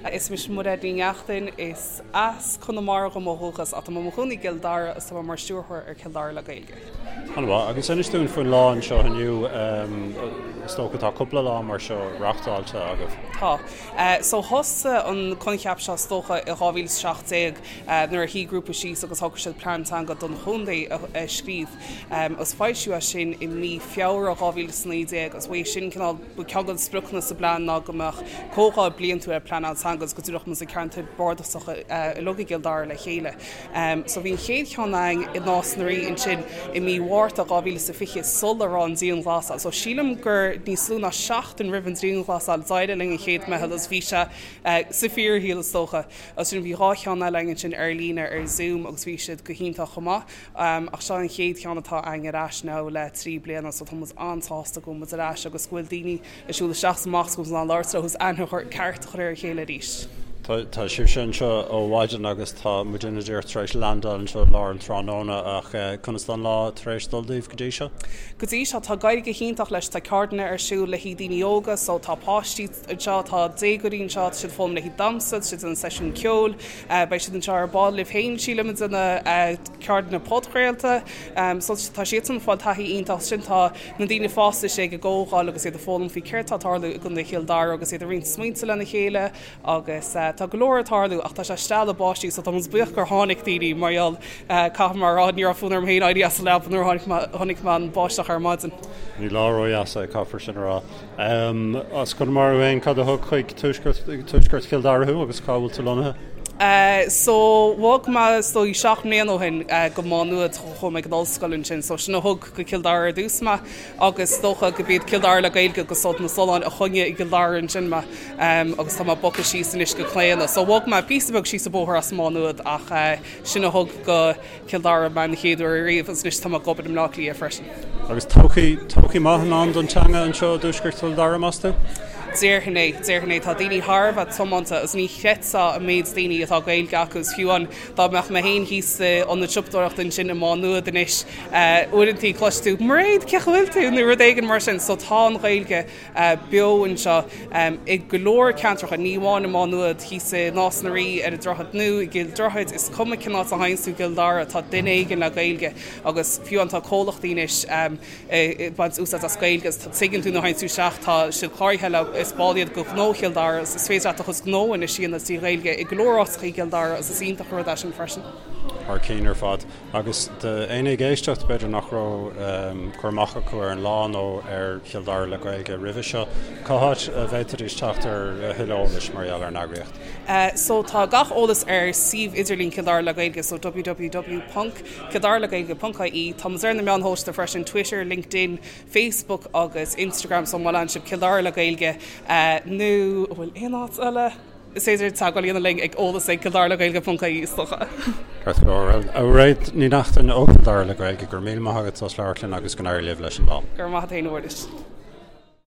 Is mise Mairéad Ní Neachtain, is as Conamara dhom ó dhúchas ach tá mé i mo chónaí i gCill Dara agus tá mé mar stiúrthóir ar Chill Dara le Gaeilge. An-mhaith. Agus inis dúinn faoin lá anseo inniu, is dócha tá cúpla lá mar seo reáchtáilte agaibh. Tá. So thosaigh an coincheap seo is dócha i 2017 nuair a shuigh grúpa síos agus shocraigh siad plean teanga don chontae a scríobh. Agus foilsíodh é sin i mí Feabhra 2019 agus uaidh sin cineál ba ceann de na spriocanna sa bplean ná go mbeadh comhdháil bliantúil ar pleanáil teanga agus go dtabharfadh muid na ceantair bhardasacha uilig i gCill Dara le chéile. So bhí an chéad cheann againn i Nás na Rí ansin i mí Mhárta 2020 sula raibh an dianghlasáil. So sílim gur níos lú ná seachtain roimh an dianghlasáil d'éirigh linn an chéad meitheal agus bhí sé sa fíorshaol is dócha. Agus sin bhí dhá cheann eile againn ansin ar líne ar Zoom agus bhí siad go hiontach chomh maith. Ach seo an chéad cheann atá againn ar ais now le 3 bliana so tá muid an-sásta go bhfuil muid ar ais agus go bhfuil daoine ag siúl isteach is amach agus go bhfuil muid in ann labhairt leo agus aithne chur ceart a chur ar a chéile arís. Tá sibhse anseo ó mhaidin agus tá muidinne díreach tar éis landáil anseo i lár an tráthnóna ach conas tá an lá tar éis dul daoibh go dtí seo? Go dtí seo tá ag éirí go hiontach leis, tá ceardlanna ar siúl le haghaidh daoine óga so tá páistí anseo, tá déagóirí anseo, tá siad ag foghlaim le haghaidh damhsa, tá siad ag déanamh seisiún ceoil, Beidh siad anseo ar ball libh féin, sílim, ag déanamh ceardlanna podchraolta. So tá siadsan ag fáil taithí iontach. Ansin tá na daoine fásta istigh ag an gcomhdháil agus iad ag foghlaim faoi céard tá ag tarlú i gContae Chill Dara agus iad ag roinnt smaointe lena chéile agus tá go leor ag tarlú ach tá sé steall báistí so tá muid buíoch gur tháinig daoine mar gheall caithfidh mé a rá ní raibh fonn orm féin éirí as an leaba nuair a chonaic mé an báisteach ar maidin. Ní lá ródheas é, caithfear sin a rá. As Conamara thú féin, cad a thug chuig tuaisceart Chill Dara thú agus cá bhfuil tú lonnaithe? So, bhog mé is dóigh 7 mbliana ó shin go Má Nuad, chuaigh mé ag an ollscoil ansin, so sin a thug go Cill Dara ar dtús mé agus is dócha go b'iad Cill Dara le Gaeilge agus Sult na Sollán a choinnigh i gCill Dara ansin mé agus tá mé bogtha síos anois go Claonadh. So bhog mé píosa beag síos an bóthar as Má Nuad ach sin a thug go Cill Dara mé an chéad uair ariamh agus anois tá mé ag obair i mBleá Cliath freisin. Agus todhchaí, todhchaí maith i ndán don teanga anseo i dtuaisceart Chill Dara, meas tú? Déarfainn é, déarfainn é. Tá daoine thar a bheith tiomanta agus ní chreidfeá an méid daoine atá Gaeilge acu agus fiú amháin dá mbeadh mé féin thíos sa ionad siopadóireachta ansin i Má Nuad anois, uaireantaí cloisfidh tú 'Mairéad, cén chaoi a bhfuil tú? nó rud éigin mar sin. So tá an Ghaeilge beo anseo i go leor ceantracha, ní amháin i Má Nuad, thíos i Nás na Rí, ar an Droichead Nua, i gCill Droichid, is cuma cén áit a théanns tú i gCill Dara, tá duine éigin le Gaeilge agus fiú amháin tá comhlachtaí anois ag baint úsáid as Gaeilge agus tuigeann tú nuair a théanns tú isteach, tá siad cláraithe le, is ball iad de Ghnó Chill Dara agus is féidir leat do chuid gnó anois a dhéanamh trí Ghaeilge i go leor áiteacha i gCill Dara agus is iontach an rud é sin freisin. Thar cinn ar fad. Agus d'éinne ag éisteacht, b'fhéidir nach raibh cur amach acu ar an lá nó ar Chill Dara le Gaeilge roimhe seo, cá háit a bhféadfaidís teacht ar a thuilleadh eolais mar gheall ar an eagraíocht? So tá gach eolas ar suíomh idirlín Chill Dara le Gaeilge, so www ponc kildaraleghaeilge.ie. Tá muid ar na meáin shóisialta freisin, Twitter, LinkedIn, Facebook agus Instagram, so má leanann sibh Cill Dara le Gaeilge nó an bhfuil aon áit eile? Is féidir teagmháil a dhéanamh linn ag eolas ag kildaraleghaeilge.ie is dócha. Ceart go leor. Bhuel, a Mhairéad Ní Neachtain ó Chill Dara le Gaeilge, go raibh míle maith agat as labhairt linn agus go n-éirí libh leis an lá. Go raibh maith agat féin a Mhuiris.